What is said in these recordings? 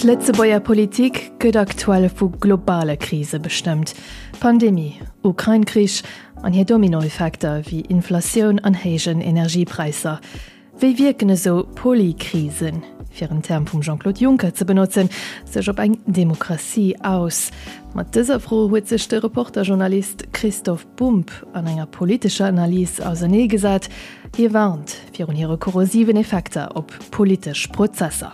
D'Lëtzebuerger Politik gëtt aktuell vu globale Krise bestëmmt, Pandemie, Ukrain-Krich an hir Dominoeffekter wéi Inflatioun an héijen Energiepräisser. Wéi wierken esou Polykrisen, fir en Term vum Jean-Claude Juncker ze benotzen, sech op eng Demokratie aus? Mat dëser Fro huet sech de Reporter-Journalist Christoph Bumb an enger politescher Analys auserneegesat. Hie warnt virun hire korrosiven Effekter op politesch Prozesser.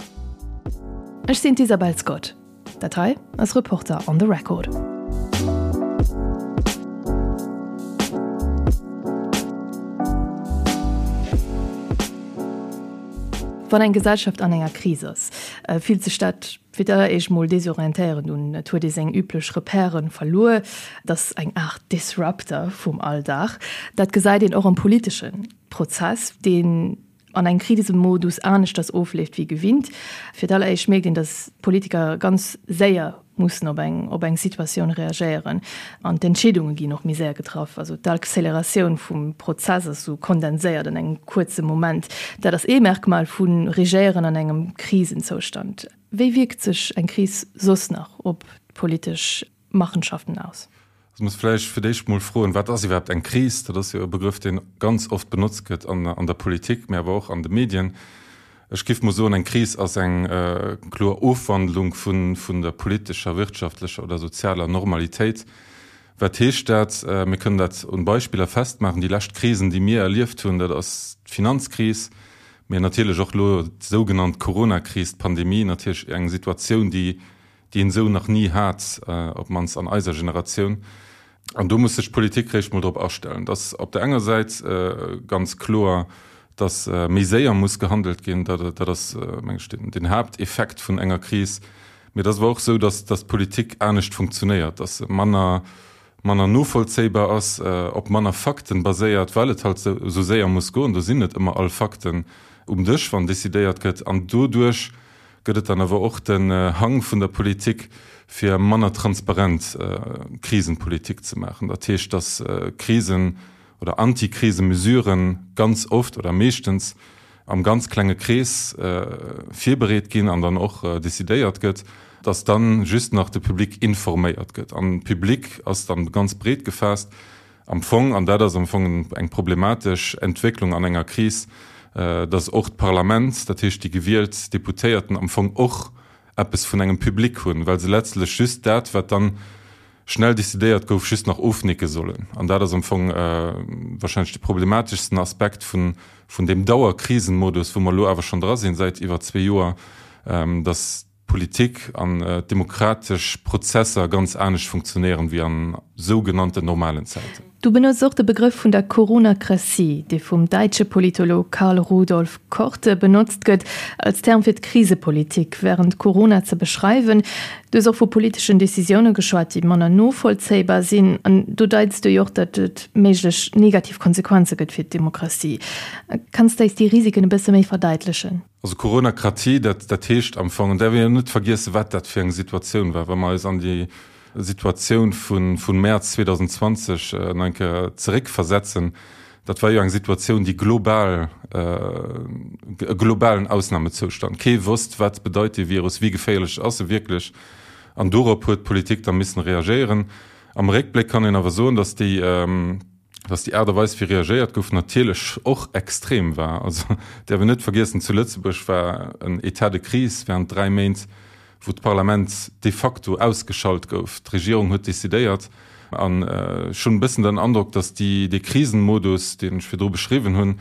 Ech sinn d'Isabel Scott. Dat hei ass Reporter on the Record. Wann eng Gesellschaft an enger Kris ass, fillt sech dat fir d'alleréischt mol desorientéierend un. Et huet ee seng üblech Repèren verluer. Et ass eng Aart Disruptor vum Alldag. Dat gesäit een och am politesche Prozess, deen an engem Krisemodus aneschters ofleeft wéi gewinnt. Fir d'alleréischt mierkt een, datt d'Politiker ganz séier mussen op eng op eng Situatioun reagéieren an d'Entscheedunge ginn och méi séier getraff. Also d'Acceleratioun vum Prozess ass esou kondenséiert an engem kuerze Moment. Dat ass ee Merkmal vu Regéieren an engem Krisenzoustand. Wéi wierkt sech eng Kris soss nach op d'politesch Machenschaften aus? Ech muss vläicht fir d'éischt mol froen, Wat ass iwwerhaapt eng Kris? Dat ass jo e Begrëff, dee ganz oft benotzt gëtt an der Politik, mä awer och an de Medien. Ech géif mol soen, eng Kris ass eng kloer Ofwandlung vun der politescher, wirtschaftlecher oder sozialer Normalitéit. Wat heescht dat? Mir kënnen dat un Beispiller festmaachen. Déi lescht Krisen, déi mir erlieft hunn, dat ass d'Finanzkris, mä natierlech och elo d'sougenannt Coronakris, d'Pandemie, natierlech eng Situatioun, déi déi een esou nach ni hat, op d'mannst an eiser Generatioun. An do muss sech d'Politik réischt mol drop astellen. Et ass op der enger Säit ganz kloer, datt méi séier muss gehandelt ginn. Dat ass, meng ech, den Haapteffekt vun enger Kris. Mee et ass awer och esou, datt d'Politik anescht funktionéiert, datt se manner, manner novollzéibar ass, op manner Fakten baséiert, well et halt esou séier muss goen. Do sinn net ëmmer all Fakten um Dësch, wann decidéiert gëtt. An doduerch gëtt et dann awer och den Hang vun der Politik, fir manner transparent Krisenpolitik ze maachen. Dat heescht, dass Krisen oder Antikrisemesuren ganz oft oder meeschtens am ganz klenge Krees virbereet ginn an dann och decidéiert gëtt, dass dann just nach de Public informéiert gëtt. An Public ass dann ganz breet gefaasst. Am Fong, an dat ass am Fong eng problematesch Entwécklung an enger Kris, datt och d'Parlament, dat heescht déi gewielt Deputéierten, am Fong och eppes vun engem Public hunn, well se letztlech just dat, wat dann schnell decidéiert gouf, just nach ofnicke sollen. An dat ass am Fong wahrscheinlech de problemateschsten Aspekt vun deem Dauerkrisenmodus, wou mer elo awer schonn dra sinn säit iwwer zwee Joer, datt d'Politik an d'demokratesch Prozesser ganz anescht funktionéieren wéi an sougenannten normalen Zäiten. Du benotz och de Begrëff vun der Coronacratie, dee vum däitsche Politolog Karl Rudolf Korte benotzt gëtt als Term fir d'Krisepolitik wärend Corona ze beschreiwen. Du hues och vu politeschen Decisioune geschwat, déi manner novollzéibar sinn. An do deits du jo och, datt et méiglech negativ Konsequenze gëtt fir d'Demokratie. Kanns de eis déi Risiken e bësse méi verdeitlechen? Also Coronakratie, dat, dat heescht am Fong, an däerf een jo net vergiessen, wat dat fir eng Situatioun war, wa mer eis an déi Situatioun vu, vu Mäerz 2020 nach eng Kéier zeréckversetzen, dat war jo eng Situatioun, déi global, e globalen Ausnamezoustand. Kee wosst, wat bedeit dee Virus, wéi geféierlech ass e wierklech. An dorop huet d'Politik da missen reagéieren. Am Réckbléck kann een awer soen, datt déi, dass déi Aart a Weis wéi reagéiert gouf natierlech och extrem war. Also däerf een net vergiessen, zu Lëtzebuerg war en État de crise während 3 Méint, wou d'Parlament de facto ausgeschalt gouf. D'Regierung huet decidéiert an ech hunn e bëssen den Androck, dass déi, dee Krisenmodus, deen ech virdru beschriwwen hunn,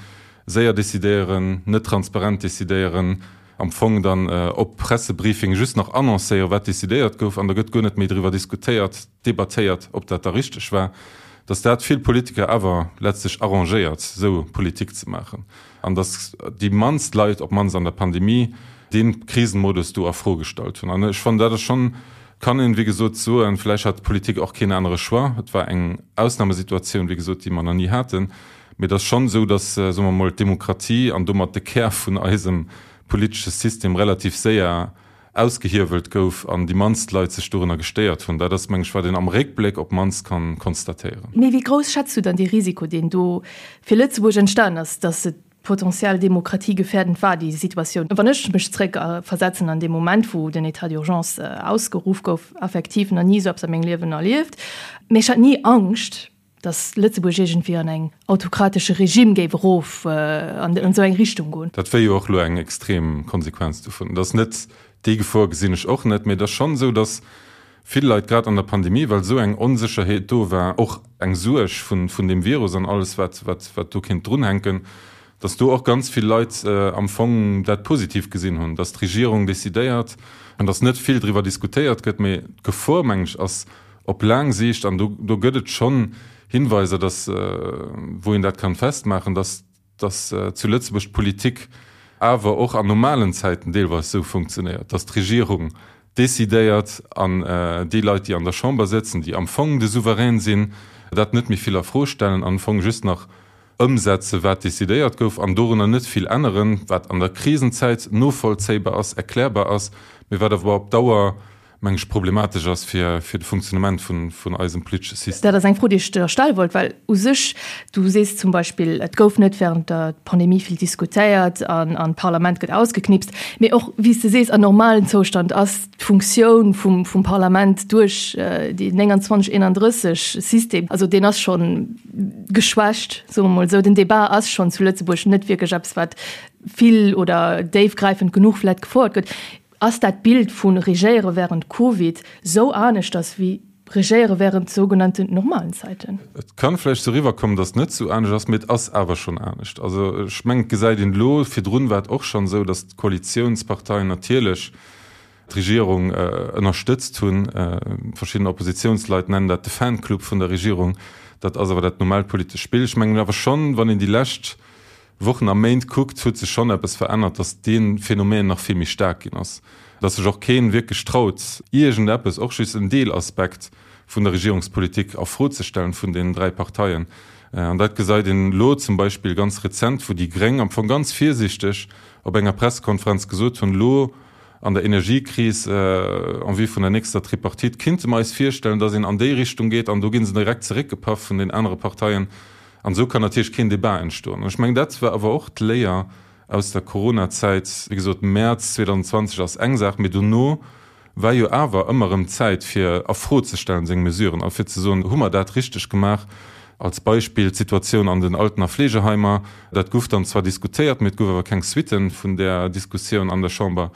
séier decidéieren, net transparent decidéieren, am Fong dann op Pressebriefing just nach annoncéieren, wat decidéiert gouf an da gëtt guer net méi driwwer diskutéiert, debattéiert, ob dat da richteg war, datt dat vill Politiker awer letztlech arrangéiert, esou Politik ze maachen, an datt déi mannst Leit, op d'mannst an der Pandemie, dee Krisenmodus do a Fro gestallt hunn. An ech fannen, dat ass schonn, kann een, wéi gesot, soen, vläicht hat d'Politik och keen anere Choix, et war eng Ausnamesituatioun, wéi gesot, déi mer nach ni haten, mee et ass schonn esou, datt, soe mer emol, d'Demokratie an domat de Kär vun eisem politesche System relativ séier ausgehiewelt gouf an déi mannst Leit sech dorunner gestéiert hunn. Dat ass, meng ech, wat een am Réckbléck op d'mannst kann konstatéieren. Mee wéi grouss schätz du dann dee Risiko, deen do fir Lëtzebuerg entstanen ass, dass et. Potentiell demokratiegefährdend war déi Situatioun. Wann ech mech zréck versetzen an dee Moment, wou den État d'urgence ausgeruff gouf, effektiv nach ni esou eppes a mengem Liewen erlieft, mee ech hat ni Angscht, datt Lëtzebuerg iergendwéi an eng autokratesche Regime géif erof an esou eng Richtung goen. Dat wär jo och elo eng extrem Konsequenz dovun. Et ass net, déi Gefor gesinn ech och net, mee et ass schonn esou, datt vill Leit grad an der Pandemie, well esou eng Onsécherheet do war, och eng Suerg vun vun deem Virus an alles wat wat wat do kéint drunhänken, datt do och ganz vill Leit am Fong dat positiv gesinn hunn, datt d'Regierung decidéiert an datt net vill driwwer diskutéiert gëtt. Mee d'Gefor, mengen ech, ass op laang Siicht, an do do gëtt et schonn Hinweiser, datt wou een dat kann festmaachen, datt dass zu Lëtzebuerg d'Politik awer och an normalen Zäiten deelweis esou funktionéiert, dass d'Regierung decidéiert an déi Leit, déi an der Chamber sëtzen, déi am Fong de Souverän sinn, dat net méi vill a Fro stellen an am Fong just nach ëmsetzen, wat decidéiert gouf an dorunner net vill änneren, wat an der Krisenzäit novollzéibar ass, erklärbar ass, mee wat awer op Dauer meng ech, problematesch ass fir de Funktionnement vun eisem politesche System. Dat ass eng Fro, déi ech der stelle wollt, well u sech, du sees zum Beispill, et gouf net während der Pandemie vill diskutéiert an an d'Parlament gëtt ausgeknipst. Mee och, wéi s de sees, an normalen Zoustand ass d'Funktioun vum vum Parlament duerch déi 29, 31 System, also deen ass scho geschwächt, soe mer mol esou. Den Débat ass schonn zu Lëtzebuerg net wierklech eppes, wat vill oder déifgräifend genuch vläicht gefouert gëtt. Ass dat Bild vu Regéiere wärend Covid sou aneschters wéi Regéiere wärend sougenannten normalen Zäiten? Et kann vläicht sou eriwwerkommen, datt et net sou anescht ass, mee et ass awer schonn anescht. Also ech mengen, et gesäit een elo, virdrun war et och schonn esou, datt d'Koalitiounsparteien natierlech d'Regierung ënnerstëtzt hunn. Verschidden Oppositiounsleit nennen dat de Fanclub vun der Regierung. Dat ass awer dat normaalt politescht Spill. Ech mengen awer schonn, wann een déi lescht Wochen a Méint kuckt, huet sech schonn eppes verännert, datt dee Phänomen nach vill méi staark ginn ass, datt sech och kee wierklech traut, iergendeppes, och just en Deelaspekt vun der Regierungspolitik a Fro ze stellen vun deenen 3 Parteien. An dat gesäit een elo zum Beispill ganz rezent, wou déi Gréng am Fong ganz virsiichteg op enger Pressekonferenz gesot hunn, elo an der Energiekris en vue vun der nächster Tripartite kinnte mer eis virstellen, datt een an déi Richtung geet, an do gi se direkt zeréckgepaff vun den anere Parteien. An esou kann natierlech keen Debat entstoen. An ech mengen, dat war awer och d'Léier aus der Coronazäit. Wéi gesot, Mäerz 2020 ass eng Saach, mee dono war jo awer ëmmer erëm Zäit, fir a Fro ze stellen seng Mesuren a fir ze soen, Hu mer dat richteg gemaach? Als Beispill d'Situatioun an den Alten a Fleegeheimer. Dat gouf dann zwar diskutéiert, mee et gouf awer keng Suitte vun där Diskussioun an der Chamber.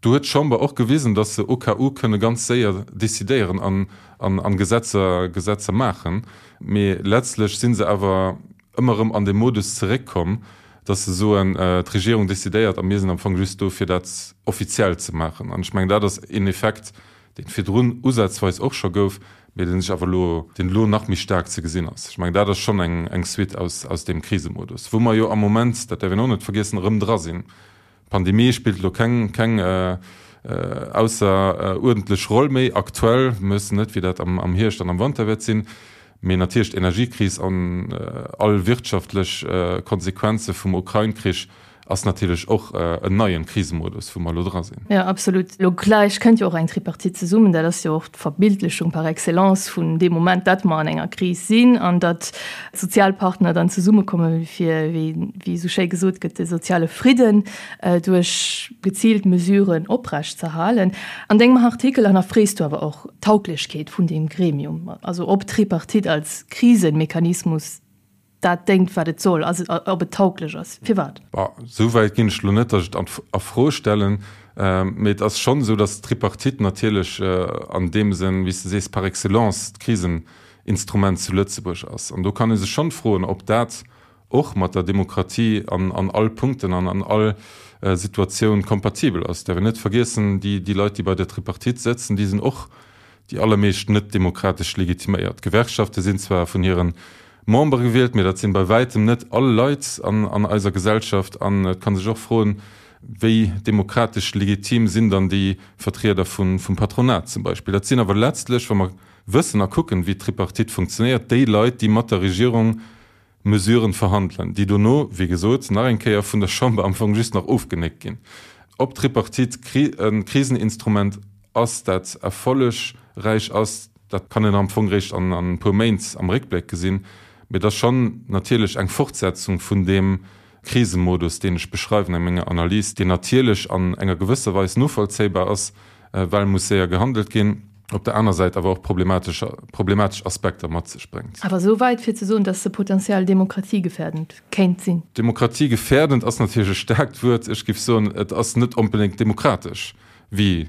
Do huet d'Chamber och gewisen, dass se au cas où kënne ganz séier decidéieren an Gesetzer Gesetzer maachen. Mee letztlech si se awer ëmmer erëm an dee Modus zeréckkomm, dass se soen, d'Regierung decidéiert a mir sinn am Fong just do, fir dat offiziell ze maachen. An ech mengen, dat ass een Effekt, dee virdrun usazweis och scho gouf, mee dee sech awer elo, deen elo nach méi staark ze gesinn ass. Ech mengen, dat ass schonn eng Suite aus deem Krisemodus, wou mer jo am Moment, dat däerf een och net vergiessen, erëm dra sinn. D'Pandemie spillt elo keng keng ausseruerdentlech Roll méi aktuell. Mir wëssen net, wéi dat am am Hierscht an am Wanter wäert sinn. Mee natierlech d'Energiekris an all wirtschaftlech Konsequenze vum Ukrain-Krich ass natierlech och en neien Krisemodus, wou mer elo dra sinn. Jo, absolut. Elo gläich kënnt jo och eng Tripartite zesummen. Dat ass jo och d'Verbildlechung par excellence vun deem Moment, datt mer an enger Kris sinn an datt d'Sozialpartner dann zesummekomme fir, wéi esou schéi gesot gëtt, de soziale Fridden duerch geziilt Mesuren oprechtzeerhalen. An dengem Artikel hannerfrees du awer och d'Tauglechkeet vun deem Gremium, also ob d'Tripartite als Krisemechanismus dat déngt, wat et soll, also ob et tauglech ass. Firwat? Bon, esou wäit ginn ech elo net, datt ech et a Fro stellen. Mee et ass schonn esou, datt d'Tripartite natierlech an deem Sënn, wéi s de sees, par excellence d'Kriseninstrument zu Lëtzebuerg ass. An do kann ee sech schonn froen, ob dat och mat der Demokratie an an all Punkten an an all Situatioun kompatibel ass. Däerf een net vergiessen, déi déi Leit, déi bei der Tripartite sëtzen, déi sinn och déi allermeescht net demokratesch legitiméiert. D'Gewerkschafte sinn zwar vun hire Membere gewielt, mee dat sinn bei wäitem net all Leit an an eiser Gesellschaft. An et kann sech och froen, wéi demokratesch legitim sinn dann déi Vertrieder vun vum Patronat zum Beispill. Dat sinn awer letztlech, wa mer wëssen a kucken, wéi d'Tripartite funktionéiert, déi Leit, déi mat der Regierung Mesuren verhandelen, déi dono, wéi gesot, nach eng Kéier vun der Chamber am Fong just nach ofgenéckt ginn. Ob d'Tripartite e Kriseninstrument ass, dat erfollegräich ass, dat kann een am Fong réischt an e puer Méint am Réckbléck gesinn. Mee et ass schonn natierlech eng Fortsetzung vun deem. Krisemodus, deen ech beschreiwen a menger Analys, deen natierlech an enger gewësser Weis novollzéibar ass, well muss séier gehandelt ginn, op der aner Säit awer och problematesch problematesch Aspekter mat sech bréngt. Awer esou wäit fir ze soen, datt se potentiell demokratiegefährdend kéint sinn? Demokratiegefährdend ass natierlech e staarkt Wuert. Ech géif soen, et ass net onbedéngt demokratesch, wéi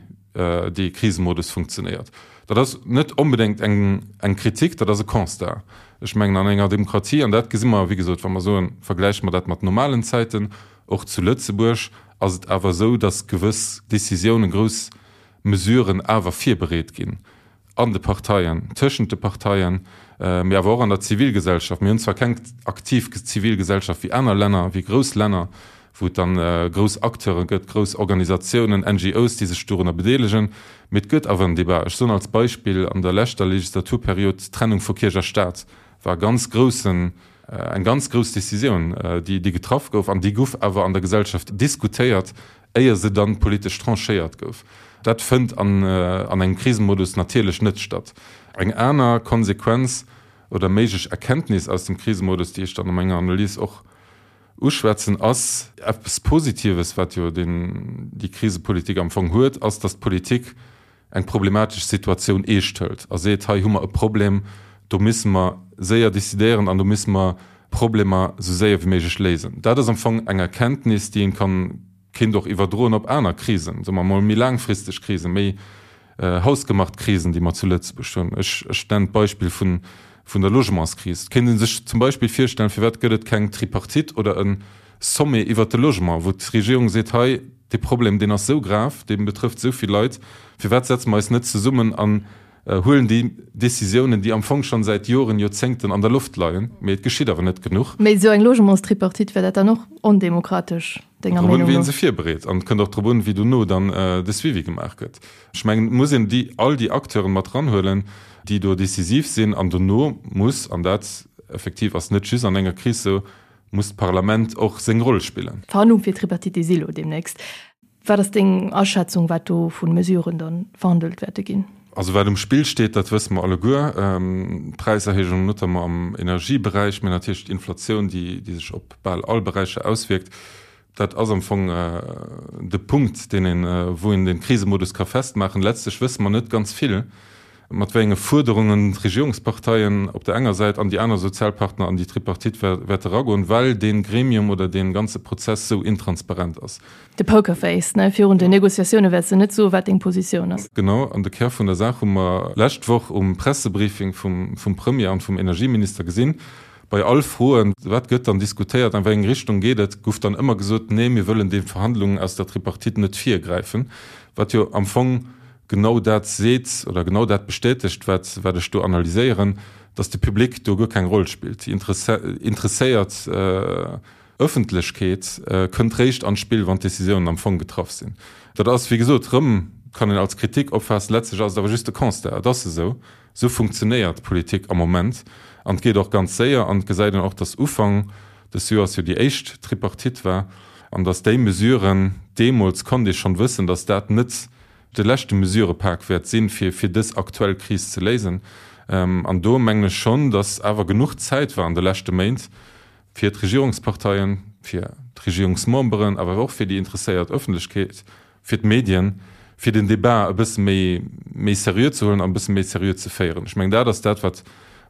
dee Krisemodus funktionéiert. Dat ass net onbedéngt eng eng Kritik, dat ass e Constat. Ech mengen, an enger Demokratie, an dat gesi mer, wéi gesot, wa mer soen, vergläiche mer dat mat normalen Zäiten, och zu Lëtzebuerg ass et awer esou, datt gewëss Décisiounen, grouss Mesuren awer virbereet ginn an de Parteien, tëschent de Parteien, mee awer och an der Zivilgesellschaft. Mir hunn zwar keng aktiv Zivilgesellschaft wéi aner Länner, wéi grouss Länner, wou et dann grouss Acteure gëtt, grouss Organisatiounen, NGOs, déi sech dorunner bedeelegen, mee et gëtt awer en Débat. Ech soen als Beispill, an der leschter Legislaturperiod, d'Trennung vu Kierch a Stat war e ganz groussen, eng ganz grouss Décisioun, déi getraff gouf an déi gouf awer an der Gesellschaft diskutéiert, éier se dann politesch tranchéiert gouf. Dat fënnt an engem Krisemodus natierlech net statt. Eng aner Konsequenz oder méiglech Erkenntnis aus dem Krisemodus, déi ech dann a menger Analys och uschwätzen, ass eppes Positives, wat jo déi Krisepolitik am Fong huet, ass, datt d'Politik eng problematesch Situatioun eescht hëlt a seet, hei hu mer e Problem, do misse mer séier décidéieren an do misse mer Problemer esou séier wéi méiglech léisen. Dat ass am Fong eng Erkenntnis, déi een kann, kéint och iwwerdroen op aner Krisen, soe mer emol méi laangfristeg Krisen, méi hausgemacht Krisen, déi mer zu Lëtzebuerg hunn. Ech, ech nennen d'Beispill vun, vun der Logementskris. Et kéint ee sech zum Beispill virstellen, firwat gëtt et keng Tripartite oder e Sommet iwwert de Logement, wou d'Regierung seet, hei, dee Problem, deen ass esou grav, dee betrëfft esou vill Leit, firwat setze mer eis net zesummen an huelen déi Décisiounen, déi am Fong schonn säit Joren, Joerzéngten an der Loft leien, mee et geschitt awer net genuch. Mee esou eng Logementstripartite, wär dat dann och ondemokratesch, denger Meenung no? Drop un, wéi ee se virbereet an et kënnt och drop un, wéi dono dann de Suivi gemaach gëtt. Ech mengen, et muss een déi, all déi Acteuren mat eranhuelen, déi do decisiv sinn an dono muss, an dat effektiv ass net just an enger Kris esou, muss d'Parlament och seng Roll spillen. D'Verhandlung fir d'Tripartite si lo deemnächst. Wat ass deng Aschätzung, wat do vu Mesuren da verhandelt wäerte ginn? Also wat um Spill steet, dat wësse mer alleguer, D'Präiserhéijung notamment am Energieberäich, mä natierlech d'Inflatioun, déi sech op bal all Beräicher auswierkt. Dat ass am Fong de Punkt, deen een, wou een de Krisemodus ka festmaachen. Letztlech wësse mer net ganz vill, mat wéi enge Fuerderungen d'Regierungsparteien op der enger Säit an déi aner Sozialpartner an déi Tripartite wäerte eragoen, well dee Gremium oder dee ganze Prozess sou intransparent ass. De Pokerface, ne? Virun den Negociatioune wäerts de net soen, wat deng Positioun ass. Genau, an de Kär vun der Saach hu mer lescht Woch um Pressebriefing vum Premier an vum Energieminister gesinn. Bei all Froen, wat gëtt dann diskutéiert, an wéi eng Richtung geet et, gouf dann ëmmer gesot, nee, mir wëllen de Verhandlungen aus der Tripartite net virgräifen, wat jo am Fong genau dat seet oder genau dat bestätegt, wat wat ech do analyséieren, dass de Public do guer keng Roll spillt. Déi interesséiert Ëffentlechkeet kënnt réischt an d'Spill, wann d'Décisiounen am Fong getraff sinn. Dat ass, wéi gesot, rëm kann een als Kritik opfaassen, letztlech ass et awer just de Constat, et ass esou, esou funktionéiert d'Politik am Moment an et geet och ganz séier an et gesäit een och, dass Ufank des Joers jo déi éischt Tripartite war an dass déi Mesuren, deemools konnt ee schonn wëssen, dass dat net de leschte Mesurepak wäert sinn, fir fir dës aktuell Kris ze léisen. An do mengen ech schonn, dass awer genuch Zäit war an de leschte Méint, fir d'Regierungsparteien, fir d'Regierungsmemberen, awer och fir déi interesséiert Ëffentlechkeet, fir d'Medien, fir den Débat e bësse méi méi seriö ze huelen an e bësse méi seriö ze féieren. Ech mengen, dat ass dat, wat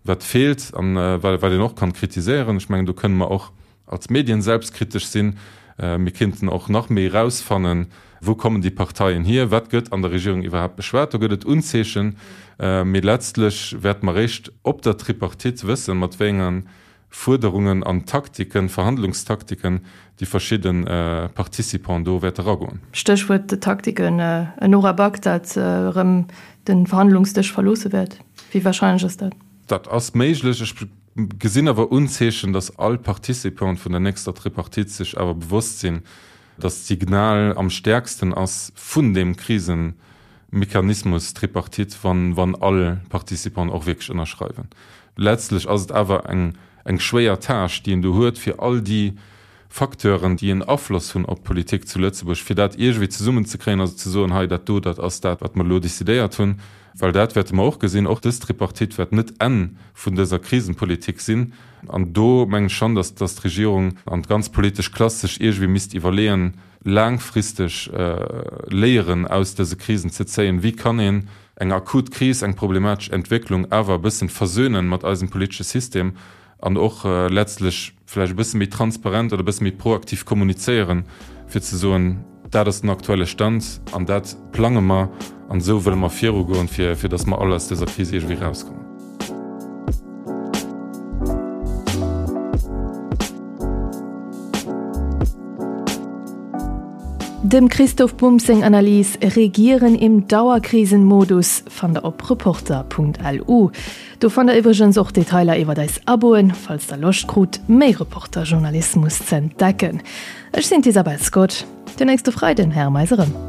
wat feelt an wat een och kann kritiséieren. Ech mengen, do kënne mer och als Medien selbstkritesch sinn. Mir kéinten och nach méi erausfannen, wou kommen déi Parteien hier, wat gëtt an der Regierung iwwerhaapt beschwat. Do gëtt et Unzeechen, mee letztlech wäerte mer eréischt op der Tripartite wëssen, mat wéi enge Fuerderungen an Taktiken, Verhandlungstaktiken déi verschidde Participants do wäerte eragoen. Stéchwuert Taktiken, En Nora Back, dat erëm de Verhandlungsdësch verloosse wäert, wéi warscheinlech ass dat? Dat ass méiglech. Ech gesinn awer Unzeechen, datt all Participant vun der nächster Tripartite sech awer bewosst sinn, datt d'Signal am stäerksten ass vun deem Krisemechanismus Tripartite, wann wann all Participanten och wierklech ënnerschreiwen. Letztlech ass et awer eng eng schwéier Tâche, déi een do huet, fir all déi. Facteuren, déi en Afloss hunn op d'Politik zu Lëtzebuerg, fir dat iergendwéi zesummenzekréien, also ze soen, hei dat do, dat ass dat, wat mer elo decidéiert hunn. Well dat wäerte mer och gesinn, och dës Tripartite wäert net d'Enn vun dëser Krisenpolitik sinn. An do mengen ech schonn, datt d'Regierung an d'ganz politesch Klass sech iergendwéi misst iwwerleeën, laangfristeg Léieren aus dëse Krisen ze zéien. Wéi kann een eng akut Kris, eng problematesch Entwécklung awer e bëssen versönen mat eisem politesche System an och letztlech vläicht e bësse méi transparent oder e bësse méi proaktiv kommunizéieren, fir ze soen, dat ass den aktuelle Stand an dat plange mer an esou wëlle mer virugoen, fir fir datt mer all aus dëser Kris iergendwéi erauskommen. Dem Christoph Bumb seng Analys Regieren im Dauerkrisenmodus fannt der op Reporter.lu. Do fannt der iwwregens och Detailer iwwert eis Aboen, falls der Loscht krut, méi Reporter-Journalismus z'entdecken. Ech sinn d'Isabel Scott. Den nächste Freiden héiere mer eis erëm.